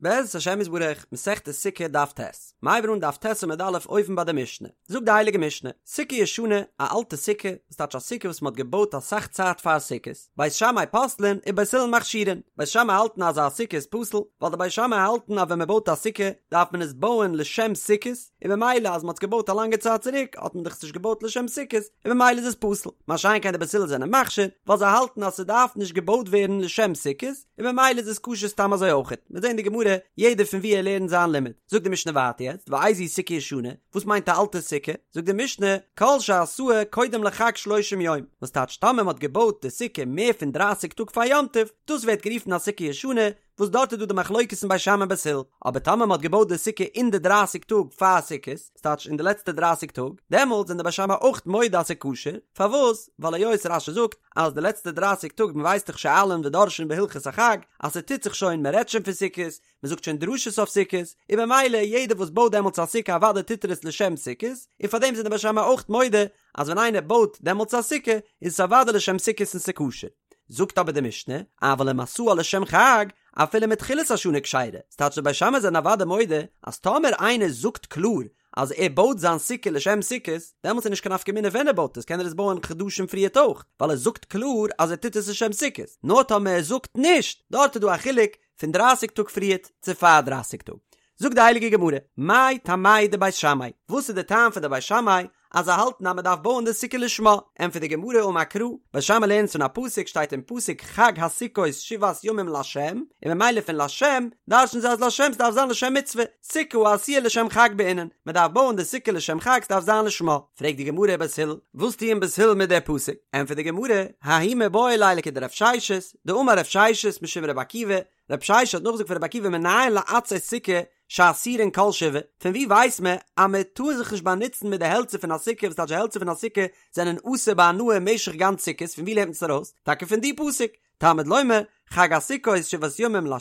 בעזרת השם יתברך, מסכת סוכה דף ט', מ'הייבן אן דף ט' עמוד א' אויבן ביי די משנה, זאגט די הייליגע משנה, סוכה ישנה, א אלטע סוכה, וואס טייטש א סוכה וואס מען האט געבויט אסאך צייט פאר סוכות, בית שמאי פוסלין ובית הלל מכשירין, בית שמאי האלטן אז א סוכה איז פסול, ווייל די בית שמאי האלטן אז ווען מען בויט א סוכה דארף מען עס בויען לשם סוכות, און במילא אז מען האט עס געבויט א לאנגע צייט צוריק האט מען דאך עס נישט געבויט לשם סוכות, און במילא איז עס פסול, מה שאין כן די בית הלל זענען מכשיר, ווייל זיי האלטן אז ס'דארף נישט געבויט ווערן לשם סוכות, און במילא איז עס כשר סתם אזוי אויכעט, מיר זעהן די גמרא, יעדער פון ווי ער לערנט זיין לימוד. זאגט די משנה ווייטער יעצט, ואיזו סוכה ישנה, וואס מיינט א אלטע סוכה? זאגט די משנה, כל שעשאה קודם לחג שלושים יום, וואס טייטש טאמער מען האט געבויט די סוכה מער פון דרייסיג טאג פאר יום טוב, דאס ווערט גערופן א סוכה ישנה, וואס דארט איז דא די מחלוקת אין בית שמאי און בית הלל, אבער טאמער מען האט געבויט די סוכה אין די דרייסיג טאג פאר סוכות, ס'טייטש אין די לעצטע דרייסיג טאג, דעמאלטס זענען די בית שמאי אויך מודה אז ס'איז כשר, פארוואס? ווייל היות רש"י זאגט אז די לעצטע דרייסיג טאג מען ווייסט דאך שואלין ודורשין בהלכות החג, אז ס'טוט זיך שוין מען רעדט שוין פון סוכות, מען זאגט שוין דרשות אויף סוכות, און במילא יעדער וואס בויט דעמאלטס א סוכה אוודאי טוט ער עס לשם סוכות, און פארדעם זענען די בית שמאי אויך מודה אז ווען איינער בויט דעמאלטס א סוכה איז עס אוודאי לשם סוכות און ס'איז כשר. זאגט אבער די משנה, אבל אם עשאה לשם חג, אפילו מתחילת השנה כשרה, ס'טייטש די בית שמאי זענען אוודאי מודה אז טאמער איינער זאגט קלאר אז ער בויט זיין סוכה לשם סוכות, דעמאלטס איז נישט קיין נפקא מינה ווען ער בויט עס, קען ער עס בויען חדשים פריערט אויך, ווייל ער זאגט קלאר אז ער טוט עס לשם סוכות, נאר טאמער ער זאגט נישט, דארט איז דא א חילוק פון דרייסיג טאג פריערט צו פאר דרייסיג טאג. זאגט די הייליגע גמרא, מאי טעמייהו דבית שמאי, וואס איז די טעם פון די בית שמאי אז זיי האלטן אז מען דארף בויען די סוכה לשמה? ענטפערט די גמרא אמר קרא, בית שמאי לערנט פון א פסוק שטייט אין פסוק חג הסוכות שבעת ימים לה', און ממילא פון לשם דרש'ן זיי אז לשם ס'דארף זיין לשם מצוה, סוכה העשויה לשם חג בעינן, מען דארף בויען די סוכה לשם חג ס'דארף זיין לשמה. פרעגט די גמרא בית הלל, וואס טוען בית הלל מיט די פסוק? ענטפערט די גמרא, ההוא מיבעי ליה לכדרב ששת, דאמר רב ששת משום רבי עקיבא, רב ששת האט נאכגעזאגט פון רבי עקיבא מנין לעצי סוכה שאסורין כל שבעה, פון ווי ווייסט מען אז מען טאר זיך נישט באנוצן מיט די העלצער פון א סוכה וואס טייטש די העלצער פון א סוכה זענען אסור בהנאה משך גאנץ סוכות פון ווי לערנט מען עס ארויס? טאקע פון די פסוק, תלמוד לומר, חג הסוכות שבעת ימים לה',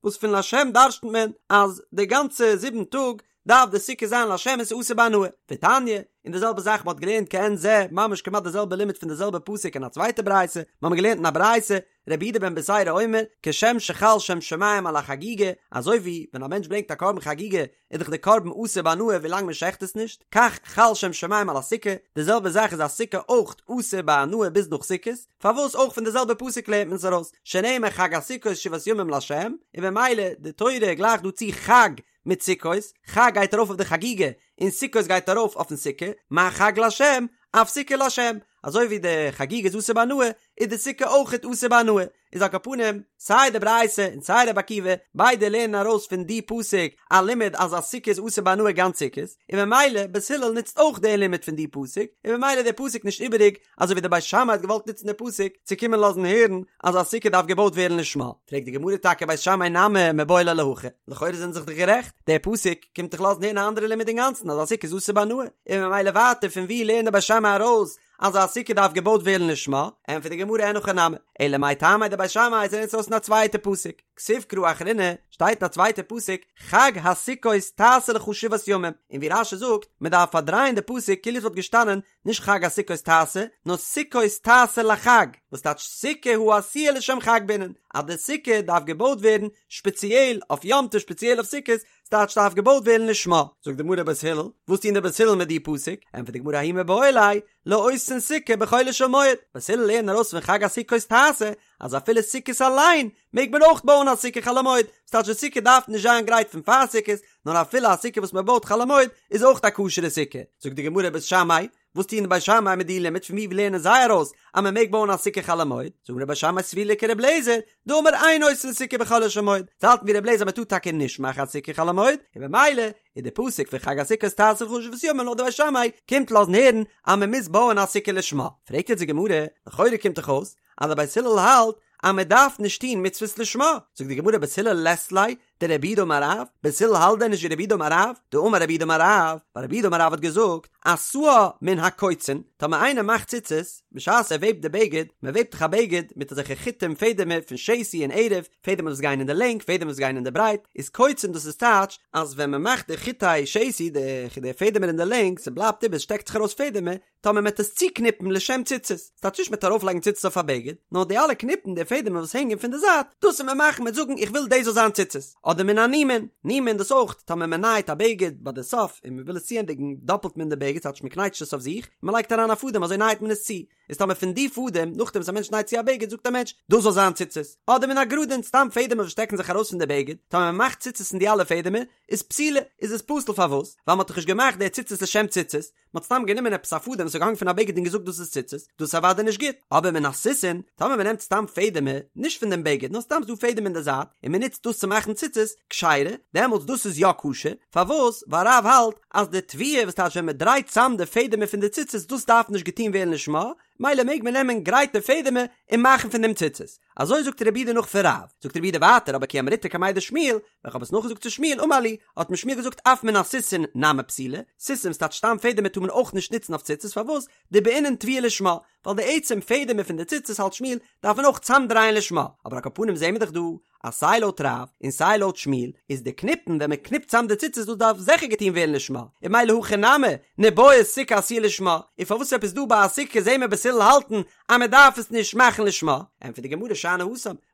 וואס פון לשם דרש'נט מען אז די גאנצע זיבן טאג דארף די סוכה זיין לשם און ס'איז אסור בהנאה. ותניא, און די זעלבע זאך מ'האט געלערנט כעין זה, ממש כמעט די זעלבע לימוד פון די זעלבע פסוק אין א צווייטע ברייתא, מ'האמיר געלערנט אין א ברייתא, רבי יהודה בן בתירא אומר, כשם שחל שם שמים על החגיגה, אזוי ווי ווען א מענטש ברענגט א קרבן חגיגה, איז דאך די קרבן אסור בהנאה ווילאנג מען שעכט עס נישט, כך חל שם שמים על הסוכה, די זעלבע זאך איז א סוכה אויך אסור בהנאה ביז נאך סוכות, פארוואס אויך פון די זעלבע פסוק לערנט מען עס ארויס, שנאמר חג הסוכות שבעת ימים לה', און במילא די תורה גלייכט דא צו חג מיט סוכות, חג גייט ארויף אויף די חגיגה, און סוכות גייט ארויף אויפן סוכה, מה חג לה', אף סוכה לה', אזוי ווי די חגיגה איז אסור בהנאה, איז די סוכה אויכעט אסור בהנאה, איז על כל פנים, סיי די ברייתא און סיי רבי עקיבא, ביידע לערנען ארויס פון די פסוק א לימוד אז א סוכה איז אסור בהנאה גאנץ סוכות, און ממילא בית הלל נוצט אויך די לימוד פון די פסוק, און ממילא איז די פסוק נישט איבעריג, אזוי ווי די בית שמאי האט געוואלט נוצן די פסוק צו קומען לאזן הערן אז א סוכה דארף געבויט ווערן לשמה, פרעגט די גמרא טאקע בית שמאי נמי מיבעי ליה להכי, לכאורה זענען זיך דאך גערעכט, דער פסוק קומט דאך לאזן הערן א אנדערע לימוד אינגאנצן אז א סוכה איז אסור בהנאה, און ממילא ווייטער פון וואו לערנט די בית שמאי ארויס אז א סוכה דארף געבויט ווערן לשמה, ענטפערט די גמרא אין הכי נמי, אלא מאי טעמא דבית שמאי זיי לערנען עס ארויס אין א צווייטע פסוק, כתיב קרא אחרינא, שטייט אין א צווייטע פסוק, חג הסוכות תעשה לך שבעת ימים, און ווי רש"י זאגט, מען דארף פארדרייען די פסוק כאילו עס וואלט געשטאנען נישט חג הסוכות תעשה, נאר סוכות תעשה לחג, וואס טייטש סוכה העשויה לשם חג בעינן, אז די סוכה דארף געבויט ווערן שפעציעל אויף יום טוב שפעציעל אויף סוכות, ס'טייטש דארף געבויט ווערן לשמה. זאגט די גמרא בית הלל, וואס טוען די בית הלל מיט די פסוק? ענטפערט די גמרא ההוא מיבעי ליה, לעושין סוכה בחולו של מועד, בית הלל לערנען ארויס פון חג הסוכות תעשה, אז אפילו סוכות אליין מעג מען אויך בויען א סוכה חול המועד, ס'טייטש די סוכה דארף נישט זיין גרייט פון פאר סוכות, נאר אפילו א סוכה וואס מען בויט חול המועד איז אויך א כשר'ע סוכה. זאגט די גמרא בית שמאי, וואס טוען די בית שמאי מיט די לימוד פון וואו לערנען זיי ארויס אז מען מעג בויען א סוכה חול המועד? זאגט די גמרא בית שמאי סבירא להו כר' אליעזר, דאמר אין עושין סוכה בחולו של מועד, זיי האלטן ווי ר' אליעזר אז מען טאר טאקע נישט מאכן א סוכה חול המועד, און במילא איז די פסוק פון חג הסוכות תעשה לך שבעת ימים לויט די בית שמאי קומט לאזן הערן אז מען מוז בויען א סוכה לשמה. פרעגט יעצט די גמרא, לכאורה קומט דאך אויס אז די בית הלל האלט אז מען דארף נישט טון מצוות לשמה, זאגט די גמרא בית הלל לית ליה דרב יהודה אמר רב, בית הלל האלט דען נישט ווי רב יהודה אמר רב, דאמר רב יהודה אמר רב, ווייל רב יהודה אמר רב האט געזאגט, עשאה מן הקוצין, טאמער איינער מאכט ציצית, בשעת ער וועבט די בגד, מען וועבט דאך א בגד מיט אזעלכע חוטים פעדעמער פון שתי און ערב, פעדעמער וואס גייען אין די לענג, פעדעמער וואס גייען אין די ברייט, איז קוצין דאס איז טייטש אז ווען מען מאכט די חוטי שתי, די פעדעמער אין די לענג, ס'בלייבט איבער, ס'שטעקט זיך ארויס פעדעמער, טאמער מ'עט עס צוקניפן לשם ציצית, ס'טייטש נישט מ'עט ארויפלייגן ציצית אויף א בגד, נאר די אלע קניפן, די פעדעמער וואס הענגען פון די זייט, דאס וועט מען מאכן מ'עט זאגן איך וויל דאס זאל זיין ציצית. אדער מן הנימין, נימין דאס אויך, טאמער מען נייעט א בגד ביי די סוף און מען וויל עס צוענדיגן דאפלט מען די בגד ס'טייטש מען קנייטשט עס אויף זיך און מען לייגט אריין א פאדעם אזוי נייעט מען עס צו, איז טאמער פון די פאדעם נאכדעם וואס א מענטש נייט צו א בגד זאגט א מענטש דאס זאל זיין ציצית, אדער מן הגרדין סתם פעדעמער וואס שטעקן זיך ארויס פון די בגד, טאמער מען מאכט ציצית פון די אלע פעדעמער איז פסולה, איז עס פסול פארוואס? ווייל מען האט דאך נישט געמאכט די ציצית לשם ציצית, מען האט סתם גענומען עפעס א פאדעם וואס איז געהאנגען פון א בגד און געזאגט דאס איז ציצית, דאס איז אוודאי נישט גוט, אבער מן הסיסין, טאמער מען נעמט סתם פעדעמער, נישט פון דעם בגד, נאר סתם ס'דא פעדעם אין די זייט, און מען נוצט דאס צו מאכן ציצית, כשרה, דעמאלטס דאס איז יא כשר, פארוואס? ווייל רב האלט אז די טוויה וואס טייטש ווען מען דרייט צאם די פעדעמער פון די ציצית דאס דארף נישט געטון ווערן לשמה, מילא מעג מען נעמען גרייטע פעדעמער און מאכן פון דעם ציצית. אזוי זאגט רב יהודה נאך פון רב. זאגט רב יהודה ווייטער אבער כי אמריתה קמיה דשמואל, ווען כ'האב עס נאכגעזאגט צו שמואל אמר לי, האט מיר שמואל געזאגט אף מן הסיסין נמי פסולה, סיסין ס'טייטש סתם פעדעמער טאר מען אויך נישט נוצן אויף ציצית פארוואס? דבעינן טוויה לשמה, ווייל די עצם פעדעמער פון די ציצית האלט שמואל דארף מען אויך צאמדרייען לשמה, אבער על כל פנים זעהן מיר דאך דא אז סיי לויט רב און סיי לויט שמואל איז די קניפן ווען מען קניפט צאם די ציצית דאס דארף זיכער געטון ווערן לשמה, און מילא הכא נמי ניבעי סוכה עשויה לשמה, און פארוואס עפעס דא ביי א סוכה זעהן מיר בית הלל האלטן אז מען דארף עס נישט מאכן לשמה, ענטפערט די גמרא שאני התם,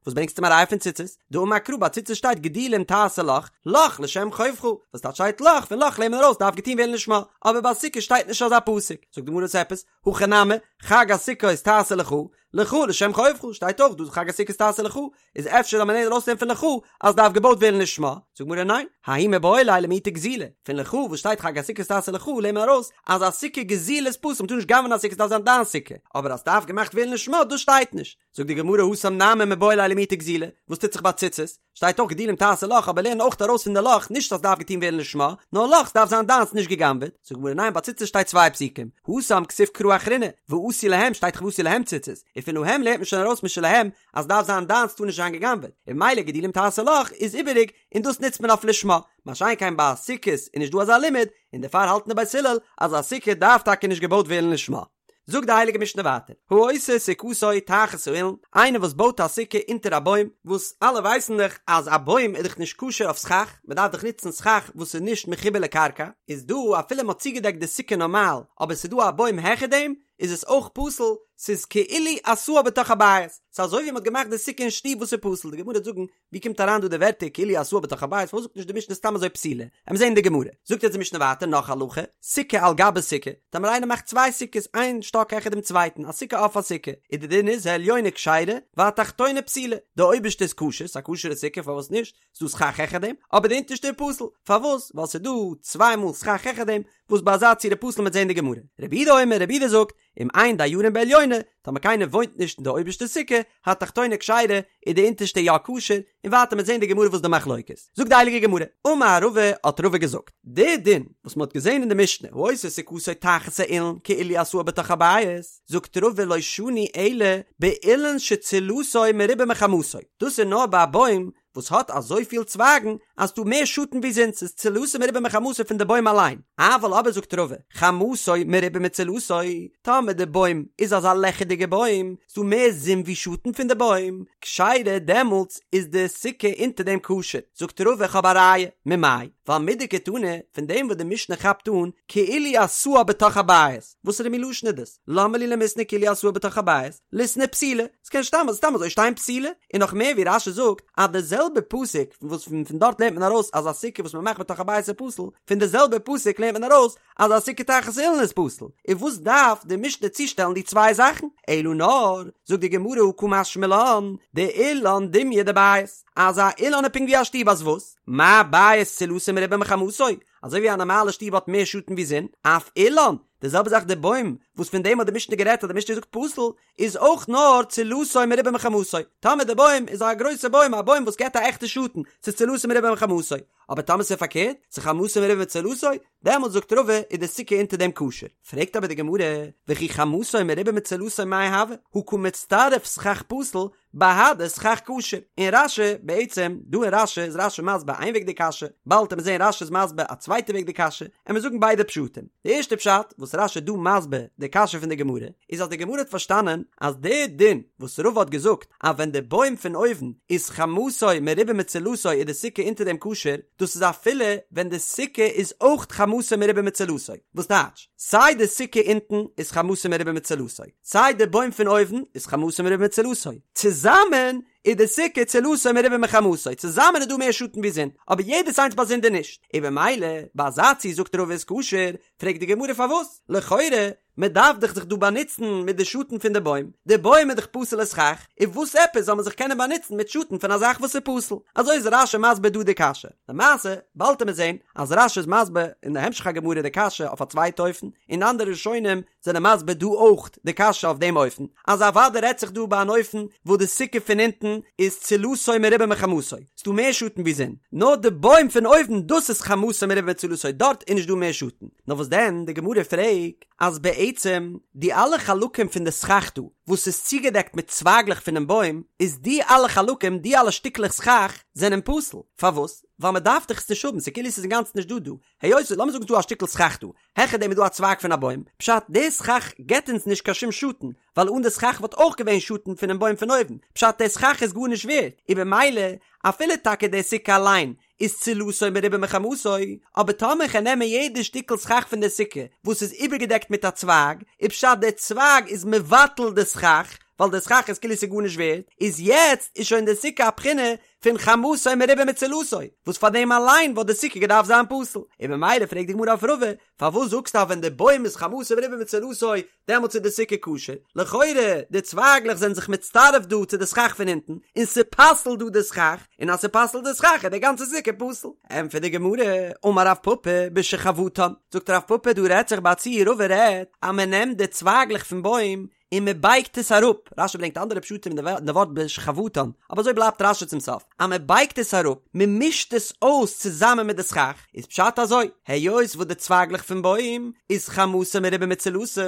וואס ברענגסטו מיר א ראיה פון ציצית? דאמר קרא ביי ציצית שטייט גדילים תעשה לך, לך לשם חובך, וואס טייטש שטייט לך, פון לך לערנט מען ארויס דארף געטון ווערן לשמה, אבער ביי סוכה שטייט נישט אזא פסוק, זאגט די גמרא וואס עפעס? הכא נמי, חג הסוכות תעשה לך, לך לשם חובך, שטייט אויך דא חג הסוכות תעשה לך, איז אפשר זאל מען לערנען ארויסנעמען פון לך אז דארף געבויט ווערן לשמה, זאגט גמרא ניין, ההוא מיבעי ליה למעוטי גזילה, פון לך וואס שטייט חג הסוכות תעשה לך לערנט מען ארויס אז א סוכה גזילה איז פסול, מ'טאר נישט גנב'ענען א סוכה ס'דארף זיין דיין סוכה, אבער אז ס'דארף געמאכט ווערן לשמה דאס שטייט נישט, זאגט די גמרא התם נמי מיבעי ליה למעוטי גזילה, וואס טוט זיך ביי ציצית? שטייט אויך גדילים תעשה לך אבער לערן אויך ארויס פון די לך נישט אז ס'דארף געטון ווערן לשמה, נאר לך ס'דארף זיין דיינס נישט גע'גנב'עט, זאגט גמרא ניין ביי ציצית שטייט צוויי פסוקים, התם כתיב קרא אחרינא, ועשו להם שטייט דאך ועשו להם ציצית, און פון להם לערנט מען שוין ארויס משלהם אז ס'דארף זיין דיינס טאר נישט זיין גע'גנב'עט, און ממילא גדילים תעשה לך איז איבעריג און דאס נוצט מען אויף לשמה, מה שאין כן ביי סוכות איז נישט דא אזא לימוד, און דערפאר האלטן די בית הלל אז א סוכה דארף טאקע נישט געבויט ווערן לשמה. זאגט די הייליגע משנה ווייטער, העושה סוכתו תחת האילן, איינער וואס בויט א סוכה אונטער א בוים, וואס אלע ווייסן דאך אז א בוים איז דאך נישט כשר אויף סכך, מען דארף דאך נוצן סכך וואס איז נישט מחובר לקרקע, איז דא אפילו מען האט צוגעדעקט די סוכה נארמאל, אבער ס'איז דא א בוים העכער דעם, איז עס אויך פסול, ס'איז כאילו עשאה בתוך הבית, ס'איז אזוי ווי מען האט געמאכט די סוכה אין שטוב וואס איז פסול, די גמרא וועט זאגן ווי קומט אריין דא די ווערטער כאילו עשאה בתוך הבית, פארוואס זאגט נישט די משנה סתם אזוי פסולה? עמיר זעהן אין די גמרא. זאגט יעצט די משנה ווייטער נאך הלכה, סוכה על גבי סוכה, טאמער איינער מאכט צוויי סוכות איין שטאק העכער דעם צווייטן, א סוכה אויף א סוכה, איז די דין איז העליונה כשרה והתחתונה פסולה, די אויבערשטע איז כשר, ס'איז א כשר'ע סוכה פארוואס נישט, ס'איז דא סכך העכער דעם, אבער די אונטערשטע איז פסול, פארוואס? ווייל ס'איז דא צוויי מאל סכך העכער דעם, וואס ביי אזא צורה פסול מ'עט זעהן אין די גמרא. רבי יהודה אומר, רבי יהודה זאגט, אם אין דיירים בעליונה, טאמער קיינער וואוינט נישט אין די אויבערשטע סוכה, התחתונה כשרה, איז די אונטערשטע יא כשר, און ווייטער מ'עט זעהן די גמרא וואס די מחלוקת. זאגט די הייליגע גמרא, אמר רבא, האט רבא געזאגט, די דין וואס מ'האט געזעהן אין די משנה, העושה סוכתו תחת האילן כאילו עשאה בתוך הבית, זאגט רבא לא שנו אלא באילן שצילתו מרובה מחמתו, דאס איז נאר ביי א בוים וואס האט אזויפיל צווייגן אז ס'דא מער שאטן ווי זון, ס'איז צילתו מרובה מחמתו פון די בוים אליין, אבל אבער זאגט רבא, חמתו מרובה מצילתו, טאמער די בוים איז אזא לעכערדיגע בוים, ס'דא מער זון ווי שאטן פון די בוים, כשרה דעמאלטס איז די סוכה אונטער דעם כשר, זאגט רבא איך האב א ראיה, ממאי? ווייל מדקתני, פון דעם וואס די משנה כאפט אן, כאילו עשאה בתוך הבית, וואסערע מין לשון איז דאס? למה לי למיתני כאילו עשאה בתוך הבית? ליתני פסולה, ס'קען סתם סתם אזוי שטיין פסולה, און נאך מער ווי רש"י זאגט אז די זעלבע פסוק וואס פון פון דארט לערנט מען ארויס אז א סוכה וואס מ'מאכט בתוך הבית איז פסול, פון די זעלבע פסוק לערנט מען ארויס אז א סוכה תחת אילן איז פסול, און וואס דארף די משנה צושטעלן די צוויי זאכן? אלא נאר, זאגט די גמרא הא קא משמע לן, דאילן דומיא דבית, אז א אילן איז פונקט ווי א שטוב אז וואס? מה בית צילתו מרובה מחמתו, אזוי ווי א נארמאלע שטוב האט מער שאטן ווי זון, אף אילן, די זעלבע זאך די בוים, וואס פון דעם האט די משנה גערעדט אז די משנה זאגט פסול, איז אויך נאר צילתו מרובה מחמתו, טאמער די בוים איז א גרויסע בוים, א בוים וואס געבט א עכטע שאטן, ס'איז צילתו מרובה מחמתו, אבער טאמער ס'איז פארקערט, ס'איז חמתו מרובה מצילתו, דעמאלטס זאגט רבא איז די סוכה אונטער דעם כשר. פרעגט אבער די גמרא, וכי חמתו מרובה מצילתו מאי הוי, הא קא מצטרף סכך פסול, בהדי סכך כשר, און רש"י, בעצם, דא אין רש"י איז רש"י מסביר איין וועג די קשיא, באלד וועט מען זעהן רש"י איז מסביר א צווייטע וועג די קשיא, עמיר זאגן ביידע פשטים. די ערשטע פשט וואס רש"י איז דא מסביר די קשיא פון די גמרא, איז אז די גמרא האט פארשטאנען אז די דין וואס רבא האט געזאגט אז ווען די בוים פון אויבן איז חמתו מרובה מצילתו איז די סוכה אונטער דעם כשר, דאס איז אפילו ווען די סוכה איז אויך חמתו מרובה מצילתו, וואס טייטש? סיי די סוכה אונטן איז חמתו מרובה מצילתו, סיי די בוים פון אויבן איז חמתו מרובה מצילתו, צוזאמען איז די סוכה צילתו מרובה מחמתו, צוזאמען איז דא מער שאטן ווי זון, אבער יעדעס איינס באזונדער נישט, און במילא ביי אזא ציור זאגט רבא איז כשר, פרעגט די גמרא פארוואס? לכאורה מען דארף דאך זיך דא באנוצן מיט די שאטן פון די בוים, די בוים איז דאך פסול'ע סכך, און וואס עפעס זאל מען זיך קענען באנוצן מיט שאטן פון א זאך וואס איז פסול? אזוי איז רש"י מסביר דא די קשיא. למעשה, באלד וועט מען זען אז רש"י איז מסביר אין די המשך הגמרא די קשיא אויף א צווייטע אופן, און אנדערע ראשונים זענען מסביר דא אויך די קשיא אויף דעם אופן, אז אוודאי רעדט זיך דא ביי אן אופן וואס די סוכה פון אונטן איז צילתו מרובה מחמתו, ס'דא מער שאטן ווי זון, נאר די בוים פון אויבן דאס איז חמתו מרובה מצילתו דארט איז נישט דא מער שאטן. נאר וואס דען, די גמרא פרעגט אז בעצם די אלע חלקים פון די סכך דא וואס איז צוגעדעקט מיט צווייגלעך פונעם בוים, איז די אלע חלקים, די אלע שטיקלעך סכך, זענען פסול. פארוואס? ווייל מען דארף דאך עס נישט האבן, ס'איז כאילו ס'איז אינגאנצן נישט דא דא. היות, לאמיר זאגן ס'איז דא א שטיקל סכך דא, העכער דעם איז דא א צווייג פון א בוים, פשט, די סכך געבט אונז נישט קיין שום שאטן, ווייל אן די סכך וואלט אויך געווען שאטן פונעם בוים פון אויבן, פשט, די סכך איז גארנישט ווערט, און במילא, אפילו טאקע די סוכה אליין איז צילתו מרובה מחמתו, אבער טאמער כ'על נעמען יעדע שטיקל סכך פון די סוכה וואס איז איבערגעדעקט מיט א צווייג, איז פשט די צווייג איז מבטל די סכך, ווייל די סכך איז כאילו ס'איז גארנישט ווערט, איז יעצט איז שוין די סוכה א בחינה פון חמתו מרובה מצילתו, וואס פאר דעם אליין וואלט די סוכה געדארפט זיין פסול, און ממילא פרעגט די גמרא אויף רבא, פארוואס זאגסטו אז ווען די בוים איז חמתו מרובה מצילתו דעמאלטס איז די סוכה כשר, לכאורה די צווייגלעך זענען זיך מצטרף דא צו די סכך פון אונטן, און ס'פסל'ט דא די סכך, און אז ס'פסל'ט די סכך איז די גאנצע סוכה פסול. ענטפערט די גמרא, אמר רב פפא בשחבטן, זאגט רב פפא דא רעדט זיך ביי א ציור רבא רעדט אז מען נעמט די צווייגלעך פון בוים און מען בייגט עס אראפ, רש"י ברענגט אנדערע פשטים אין די ווארט בשחבטן, אבער אזוי בלייבט רש"י צום סוף, אז מען בייגט עס אראפ, מען מישט עס אויס צוזאמען מיט די סכך, איז פשט אזוי, היות וואס די צווייגלעך פון בוים איז חמתה מרובה מצילתה,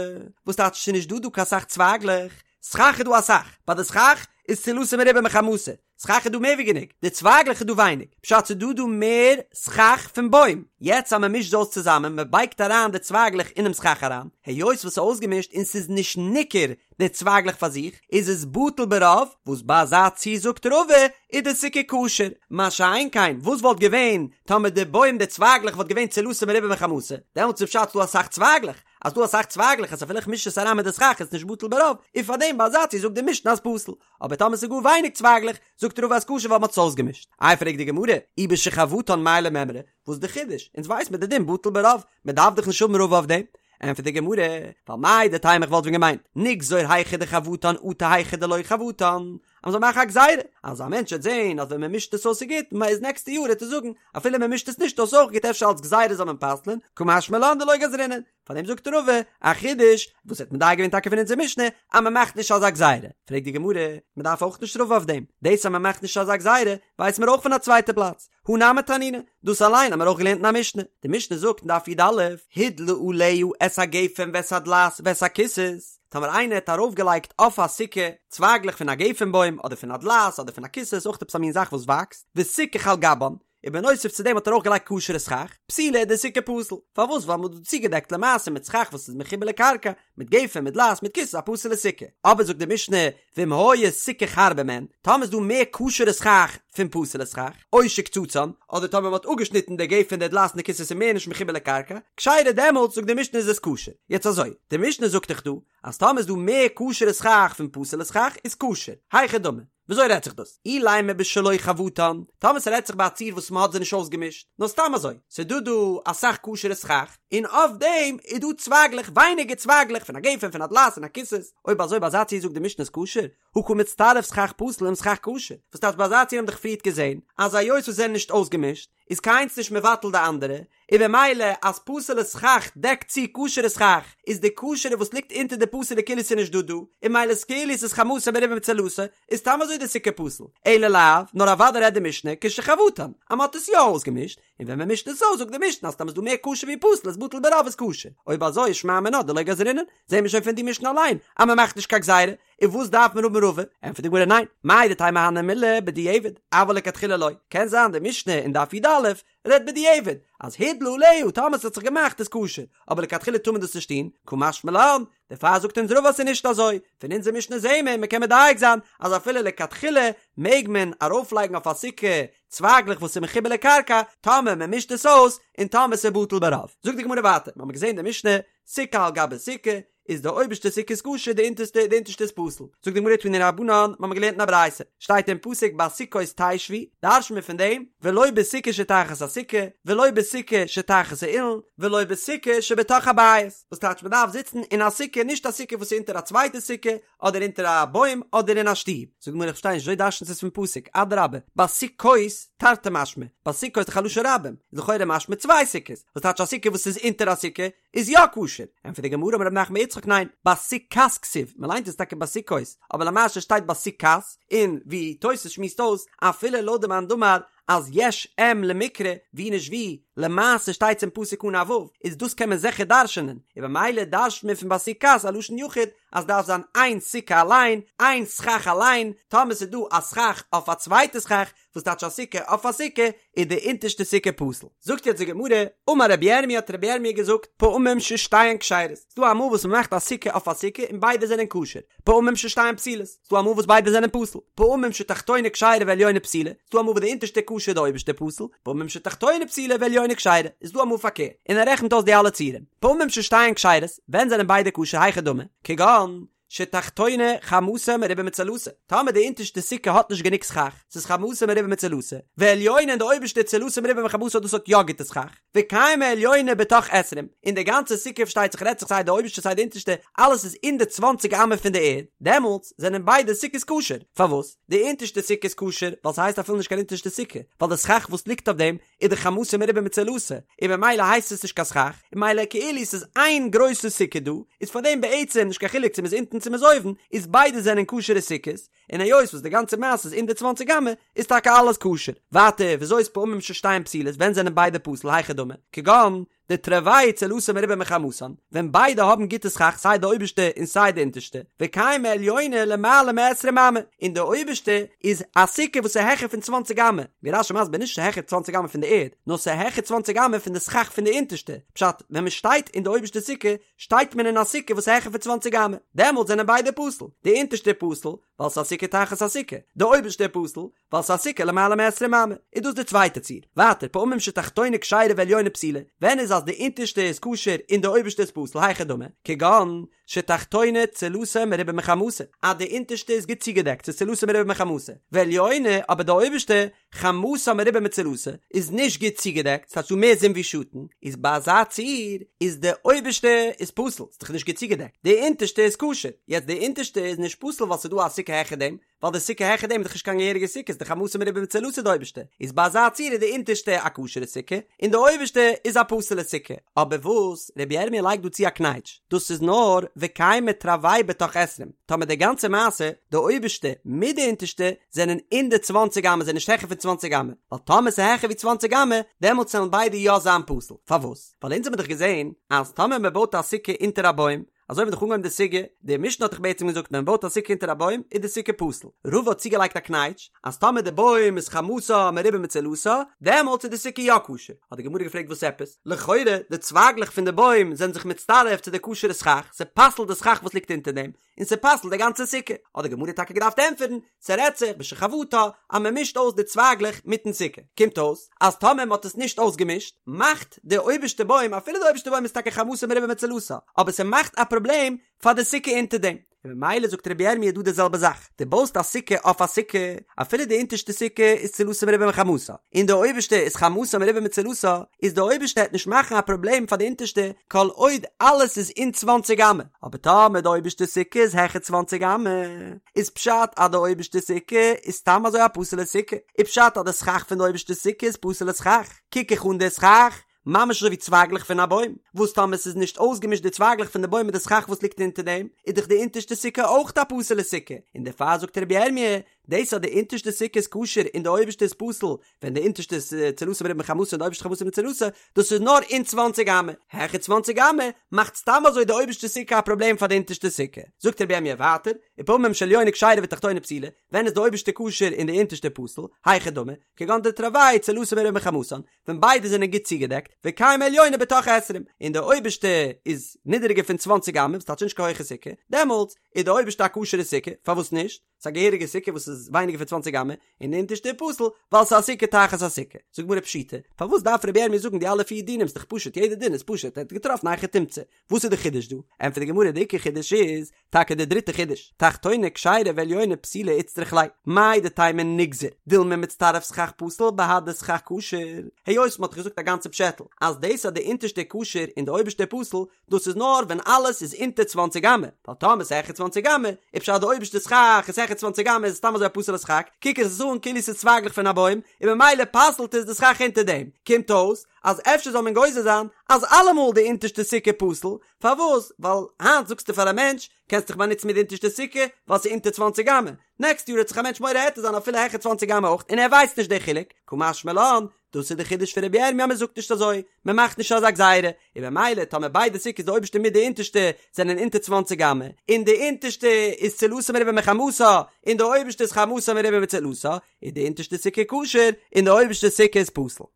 וואס טייטש ס'איז נישט דא דא קיין סך צווייגלעך, סכך איז דא אסאך, ביי די סכך איז צילתה מרובה מחמתה, סכך איז דא מער ווי גענוג, די צווייגלעך איז דא ווייניג, פשט ס'איז דא דא מער סכך פון בוים, יעצט אז מ'מישט זיי אויס צוזאמען, מ'בייגט אריין די צווייגלעך אינעם סכך אריין, היות וואס ס'איז אויסגעמישט און ס'איז נישט ניכר די צווייגלעך פאר זיך, איז עס בטל ברוב, וואס ביי אזא ציור זאגט רבא איז די סוכה כשר, מה שאין כן וואס וואלט געווען טאמער די בוים די צווייגלעך וואלט געווען צילתה מרובה מחמתה, דעמאלטס איז פשט ס'דא אסאך צווייגלעך, אז ס'דא אסאך צווייגלעך אז אפילו איך מיש עס אריין מיט די סכך איז נישט בטל ברוב, און פארדעם ביי אזא ציור זאגט די משנה אז פסול. אבער טאמער ס'איז גאר ווייניג צווייגלעך, זאגט רבא אז כשר ווייל מ'האט עס אויסגעמישט. איי פרעגט די גמרא, אי בשחבטן מאי למימרא, וואס די חידוש? אונז ווייס מיר די דין בטל ברוב, מ'דארף דאך נישט האבן רבא אויף דעם. ענטפערט די גמרא, ווייל מהו דתימא איך וואלט ווען געמיינט, נגזור היכא דחבטן אטו היכא דלא חבטן, אז מ'זאל מאכן א גזירה, אז א מענטש וועט זען אז ווען מ'מישט עס אויס איז גוט, איז נעקסטע יאר וועט ער זאגן, אפילו מ'מישט עס נישט אויס אויך גוט אפשר אלס גזירה זאל מען פסל'ען, קא משמע לן דלא גזרינן. פאר דעם זאגט רבא, א חידוש, וואס האט מדייק געווען טאקע פון אונזער משנה, אז מען מאכט נישט אזא גזירה. פרעגט די גמרא, מען דארף אויך נישט רבא אויף דעם, דאס אז מען מאכט נישט אזא גזירה, ווייסן מיר אויך פון א צווייטע פלאץ, הא נמי תנינא, דאס אליין האמיר אויך געלערנט אין א משנה, די משנה זאגט אין דף י"א, הדלה עליה את הגפן ואת הדלעת ואת הקיסוס, טאמער איינער האט ארויפגעלייגט אויף א סוכה צווייגלעך פון א גפן בוים, אדער פון א דלעת, אדער פון א קיסוס, אויך עפעס א מין זאך וואס וואקסט, וסיכך על גבן, און בנוסף צו דעם האט ער אויך געלייגט כשר'ע סכך, פסולה איז די סוכה פסול. פארוואס? ווייל מ'האט דא צוגעדעקט למעשה מיט סכך וואס איז מחובר לקרקע, מיט גפן, מיט דלעת, מיט קיסוס, א פסול'ע סוכה. אבער זאגט די משנה, ואם היה סיכוך הרבה מהן, טאמער איז דא מער כשר'ע סכך פון פסול'ע סכך, או שקצצן, אדער טאמער מ'האט אפגעשניטן די גפן די דלעת און די קיסוס איז מער נישט מחובר לקרקע, כשרה דעמאלטס זאגט די משנה איז עס כשר. יעצט אזוי, די משנה זאגט דאך דא, אז טאמער איז דא מער כשר'ע סכך פון פסול'ע סכך איז כשר. היכי דמי. וויאזוי רעדט זיך דאס? אילימא בשלא חבטן, טאמער ס'רעדט זיך ביי א ציור וואס מ'האט זיי נישט אויסגעמישט, נאר סתם אזוי, ס'דא דא אסאך כשר'ע סכך, און אויף דעם איז דא צווייגלעך, ווייניגער צווייגלעך פון א גפן, פון א דלעת און א קיסוס, אויב אזוי ביי אזא ציור זאגט די משנה איז כשר, הא קא מצטרף סכך פסול עם סכך כשר, וואס טייטש ביי אזא ציור האבן דאך פריערט געזען אז היות וואס זענען נישט אויסגעמישט, איז קיינס נישט מבטל די אנדערע, און במילא אז פסול'ע סכך דעקט צו כשר'ע סכך, איז די כשר'ע וואס ליגט אונטער די פסול'ע כאילו ס'איז נישט דא דא, און ממילא איז כאילו ס'איז חמתו מרובה מצילתו, איז סתם אזוי די סוכה פסול. אלא לאו, נאר אוודאי רעדט די משנה כשחבטן, אז מ'האט עס יא אויסגעמישט, און ווען מ'מישט עס אויס זאגט די משנה אז טאמער איז דא מער כשר ווי פסול איז בטל ברוב איז כשר. אויב אזוי איז שמע מינה דלא גזרינן, זעהן מיר שוין פון די משנה אליין אז מ'מאכט נישט קיין גזירה, און וואס דארף מען האבן רבא? ענטפערט די גמרא ניין, מהו דתימא הני מילי בדיעבד, אבל לכתחילה לא, קען זיין די משנה אין דף י"א רעדט בדיעבד, אז הדלה עליה טאמער ס'האט זיך געמאכט איז כשר, אבער לכתחילה טאר מען דאס נישט טון, קא משמע לן, דערפאר זאגט אונז רבא אז ס'איז נישט אזוי, פון אונזער משנה זעהן מיר, מ'קען מדייק זיין אז אפילו לכתחילה מעג מען ארויפלייגן אויף א סוכה צווייגלעך וואס איז מחובר לקרקע, טאמער מ'מישט עס אויס, און טאמער ס'איז בטל ברוב. זאגט די גמרא ווייטער, מ'האמיר געזעהן די משנה, סוכה על גבי סוכה, איז די אויבערשטע סוכה איז כשר די אונטערשטע די אונטערשטע איז פסול. זאגט די גמרא תנו רבנן, מ'האמיר געלערנט אין א ברייתא, שטייט אין פסוק בסוכות תשבו, דרש'ן מיר פון דעם, ולא בסוכה שתחת הסוכה, ולא בסוכה שתחת האילן, ולא בסוכה שבתוך הבית, וואס טייטש מ'דארף זיצן אין א סוכה נישט א סוכה וואס איז אונטער א צווייטע סוכה, אדער אונטער א בוים אדער אין א שטוב. זאגט די גמרא איך פארשטיי נישט וויאזוי דרש'נט עס פון פסוק, אדרבה, בסוכות תרתי משמע, בסוכות איז דאך א לשון רבים, איז לכאורה משמע צוויי סוכות, וואס טייטש א סוכה וואס איז אונטער א סוכה, איז יא כשר, ענטפערט די גמרא אמר רב נחמן בר יצחק ניין, בסוכת כתיב, מען ליינט עס טאקע בסוכות, אבער למעשה שטייט בסוכת, און ווי תוס' שמועסט אויס, אפילו לויט די מאן דאמר אז יש אם למקרא, ווי נישט ווי, למעשה שטייט עס אין פסוק אן א ו', איז דאס קען מען זיכער דרש'נען, און במילא דרש'נט מען פון בסוכת א לשון יחיד, אז דארף זיין איין סוכה אליין, איין סכך אליין, טאמער ס'איז דא א סכך אויף א צווייטע סכך, וואס טייטש א סוכה אויף א סוכה, איז די אונטערשטע סוכה פסול. זאגט יעצט די גמרא, אמר רבי ירמי' האט רבי ירמי' געזאגט, פעמים ששתיהן כשרות, ס'דא אמאל וואס מ'מאכט א סוכה אויף א סוכה און ביידע זענען כשר, פעמים ששתיהן פסולות, ס'דא אמאל וואס ביידע זענען פסול, פעמים שתחתונה כשרה ועליונה פסולה, ס'דא אמאל וואס די אונטערשטע כשר די אויבערשטע פסול, פעמים שתחתונה פסולה ועליונה כשרה, איז דא אמאל פארקערט, און ער רעכנט אויס די אלע ציורים, פעמים ששתיהן כשרות, ווען זענען ביידע כשר היכי דמי, כגון, שתחתונה חמתה מרובה מצלתה, טאמער די אונטערשטע סוכה האט נישט גענוג סכך, ס'איז חמתה מרובה מצלתה, ועליונה און די אויבערשטע צלתה מרובה מחמתה דאס האט יא גוטע סכך, וקיימא עליונה בתוך עשרים, און די גאנצע סוכה פארשטייט זיך רעדט זיך סיי די אויבערשטע סיי די אונטערשטע אלעס איז אין די צוואנציג אמה פון די ערד, דעמאלטס זענען ביידע סוכות כשר, פארוואס? די אונטערשטע סוכה איז כשר ווייל ס'הייסט אפילו נישט קיין אונטערשטע סוכה, ווייל די סכך וואס ליגט אויף דעם איז דאך חמתה מרובה מצלתה, און במילא הייסט עס נישט קיין סכך, און ממילא כאילו ס'איז איין גרויסע סוכה דא, איז פארדעם בעצם נישט קיין חילוק צו מ'איז אונטן צו מ'איז אויבן, איז ביידע זענען כשר'ע סוכות, און היות וואס די גאנצע מעשה איז אין די צוואנציג אמה, איז טאקע אלעס כשר. ווייטער, וויאזוי איז פעמים ששתיהן פסולות, ווען זענען ביידע פסול, היכי דמי, כגון, דתרוייהו צילתן מרובה מחמתן, ווען ביידע האבן גוטע סכך סיי די אויבערשטע און סיי די אונטערשטע, וקיימא עליונה למעלה מעשרים אמה, און די אויבערשטע איז א סוכה וואס איז העכער פון צוואנציג אמה, ווי רש"י מסביר נישט ס'העכער צוואנציג אמה פון די ערד, נאר ס'העכער צוואנציג אמה פון די סכך פון די אונטערשטע, פשט, ווען מ'שטייט אין די אויבערשטע סוכה, שטייט מען אין א סוכה וואס איז העכער פון צוואנציג אמה, דעמאלט זענען ביידע פסול, די אונטערשטע פסול, ווייל ס'איז א סוכה תחת הסוכה, די אויבערשטע פסול, ווייל ס'איז א סוכה למעלה מעשרים אמה, איז דאס די צווייטע ציור. ווייטער, פעמים שתחתונה כשרה ועליונה פסולה, ווען איז אז די אונטערשטע איז כשר און די אויבערשטע איז פסול, היכי דמי, כגון שתחתונה צילתה מרובה מחמתה, אז די אונטערשטע איז גוט צוגעדעקט, ס'איז צילתה מרובה מחמתה, ועליונה, אבער די אויבערשטע, חמתה מרובה מצילתה, איז נישט גוט צוגעדעקט, ס'האט דא מער זון ווי שאטן, איז ביי אזא ציור איז די אויבערשטע איז פסול, ס'איז דאך נישט גוט צוגעדעקט, די אונטערשטע איז כשר, יעצט די אונטערשטע איז נישט פסול ווייל ס'איז דא א סוכה העכער דעם, ווייל די סוכה העכער דעם איז דאך נישט קיין געהעריגע סוכה, ס'איז דאך חמתה מרובה מצילתה די אויבערשטע, איז ביי אזא ציור איז די אונטערשטע א כשר'ע סוכה, און די אויבערשטע איז א פסול'ע סוכה. אבער וואס רבי ירמי' לייגט דא צו א קנייטש, דאס איז נאר וקיימא תרוייהו בתוך עשרים, טאמער די גאנצע מעשה, די אויבערשטע מיט די אונטערשטע, זענען אין די צוואנציג אמה, זענען נישט העכער פון צוואנציג אמה, ווייל טאמער ס'איז העכער ווי צוואנציג אמה, דעמאלטס וועלן ביידע יא זיין פסול. פארוואס? ווייל אונז האבן דאך געזען אז טאמער מ'בויט א סוכה אונטער א בוים, אזוי האבן מיר דאך אנגעהויבן די סוגיא, די משנה האט דאך בעצם געזאגט ווען מען בויט א סוכה אונטער א בוים איז די סוכה פסול, רבא האט צוגעלייגט א קנייטש אז טאמער די בוים איז חמתה מרובה מצילתה דעמאלטס איז די סוכה יא כשר, האט די גמרא געפרעגט וואס עפעס? לכאורה די צווייגלעך פון די בוים זענען זיך מצטרף צו די כשר'ע סכך, ס'פסל'ט די סכך וואס ליגט אונטער דעם, און ס'פסל'ט די גאנצע סוכה, האט די גמרא טאקע געדארפט ענטפערן, ס'רעדט זיך בשחבטה אז מען מישט אויס די צווייגלעך מיטן סוכה, קומט אויס אז טאמער מען האט עס נישט אויסגעמישט, מאכט די אויבערשטע בוים, אפילו די אויבערשטע בוים איז טאקע חמתה מרובה מצילתה, אבער ס'מאכט א פראבלעם פאר די סוכה אונטער דעם. און ממילא זאגט רבי ירמי' דא די זעלבע זאך, דו בויסט א סוכה אויף א סוכה, אפילו די אונטערשטע סוכה איז צילתה מרובה מחמתה, און די אויבערשטע איז חמתה מרובה מצילתה, איז די אויבערשטע העט נישט מאכן א פראבלעם פאר די אונטערשטע כל עוד אלעס איז אין צוואנציג אמה, אבער טאמער די אויבערשטע סוכה איז העכער צוואנציג אמה, איז פשט אז די אויבערשטע סוכה איז סתם אזוי א פסול'ע סוכה, איז פשט אז די סכך פון די אויבערשטע סוכה איז פסול'ע סכך, קוק איך אן די סכך ממש אזוי ווי צווייגלעך פון א בוים, וואס טאמער ס'איז נישט אויסגעמישט די צווייגלעך פון די בוים מיט די סכך וואס ליגט אונטער דעם, איז דאך די אונטערשטע סוכה אויך א פסול'ע סוכה, און דערפאר זאגט רבי ירמי', דאס אז די אונטערשטע סוכה איז כשר און די אויבערשטע איז פסול, ווען די אונטערשטע איז צילתה מרובה מחמתה און די אויבערשטע חמתה מצילתה, דאס איז נאר אין צוואנציג אמה, העכער צוואנציג אמה מאכט סתם אזוי די אויבערשטע סוכה א פראבלעם פאר די אונטערשטע סוכה. זאגט רבי ירמי' ווייטער, ופעמים שעליונה כשרה ותחתונה פסולה, ווען איז די אויבערשטע כשר און די אונטערשטע פסול, היכי דמי, כגון דתרוייהו צילתן מרובה מחמתן, ווען ביידע זענען גוט צוגעדעקט, וקיימא עליונה בתוך עשרים, און די אויבערשטע איז נידעריגער פון צוואנציג אמה, וואס טייטש נישט קיין הויכע סוכה, דעמאלטס איז די אויבערשטע א כשר'ע סוכה, פארוואס נישט? ס'איז א געהעריגע סוכה וואס איז ווייניגער פון צוואנציג אמה, און די אונטערשטע איז פסול ווייל ס'איז א סוכה תחת הסוכה. זאגט גמרא פשיטא, פארוואס דארף רבי ירמי' זאגן די אלע פיר דינים ס'דאך פשוט יעדע דין איז פשוט ער האט געטראפן א היכי תמצא, וואס איז די חידוש דא? ענטפערט די גמרא די עיקר חידוש איז טאקע די דריטע חידוש, תחתונה כשרה ועליונה פסולה איצטריך ליה, מהו דתימא ניגזור, דילמא מצטרף סכך פסול בהדי סכך כשר, היות מ'האט געזאגט א גאנצע פשעטל אז דאס אז די אונטערשטע איז כשר און די אויבערשטע איז פסול, דאס איז נאר ווען אלעס איז אונטער צוואנציג אמה, ווייל טאמער ס'איז העכער צוואנציג אמה, איז פשט אז די אויבערשטע סכך איז העכער צוואנציג אמה איז עס סתם אזוי א פסול'ע סכך, קוק איך עס אן כאילו ס'איז צווייגלעך פון א בוים, און ממילא פסל'ט עס די סכך אונטער דעם, קומט אויס אז אפשר זאל מען גוזר זיין אז אלעמאל די אונטערשטע סוכה פסול, פארוואס? ווייל היינט זאגסטו פאר א מענטש, קענסט דיך באנוצן מיט די אונטערשטע סוכה, ווייל ס'איז אונטער צוואנציג אמה, נעקסט יאר וועט זיך א מענטש מורה היתר זיין אפילו העכער צוואנציג אמה אויך און ער ווייסט נישט די חילוק, קא משמע לן, דאס איז די חידוש פון רבי ירמי' אז מען זאגט נישט אזוי, מען מאכט נישט אזא גזירה, און במילא טאמער ביידע סוכות די אויבערשטע מיט די אונטערשטע זענען אונטער צוואנציג אמה, און די אונטערשטע איז צילתה מרובה מחמתה, און די אויבערשטע איז חמתה מרובה מצילתה, איז די אונטערשטע סוכה כשר און די אויבערשטע סוכה איז פסול.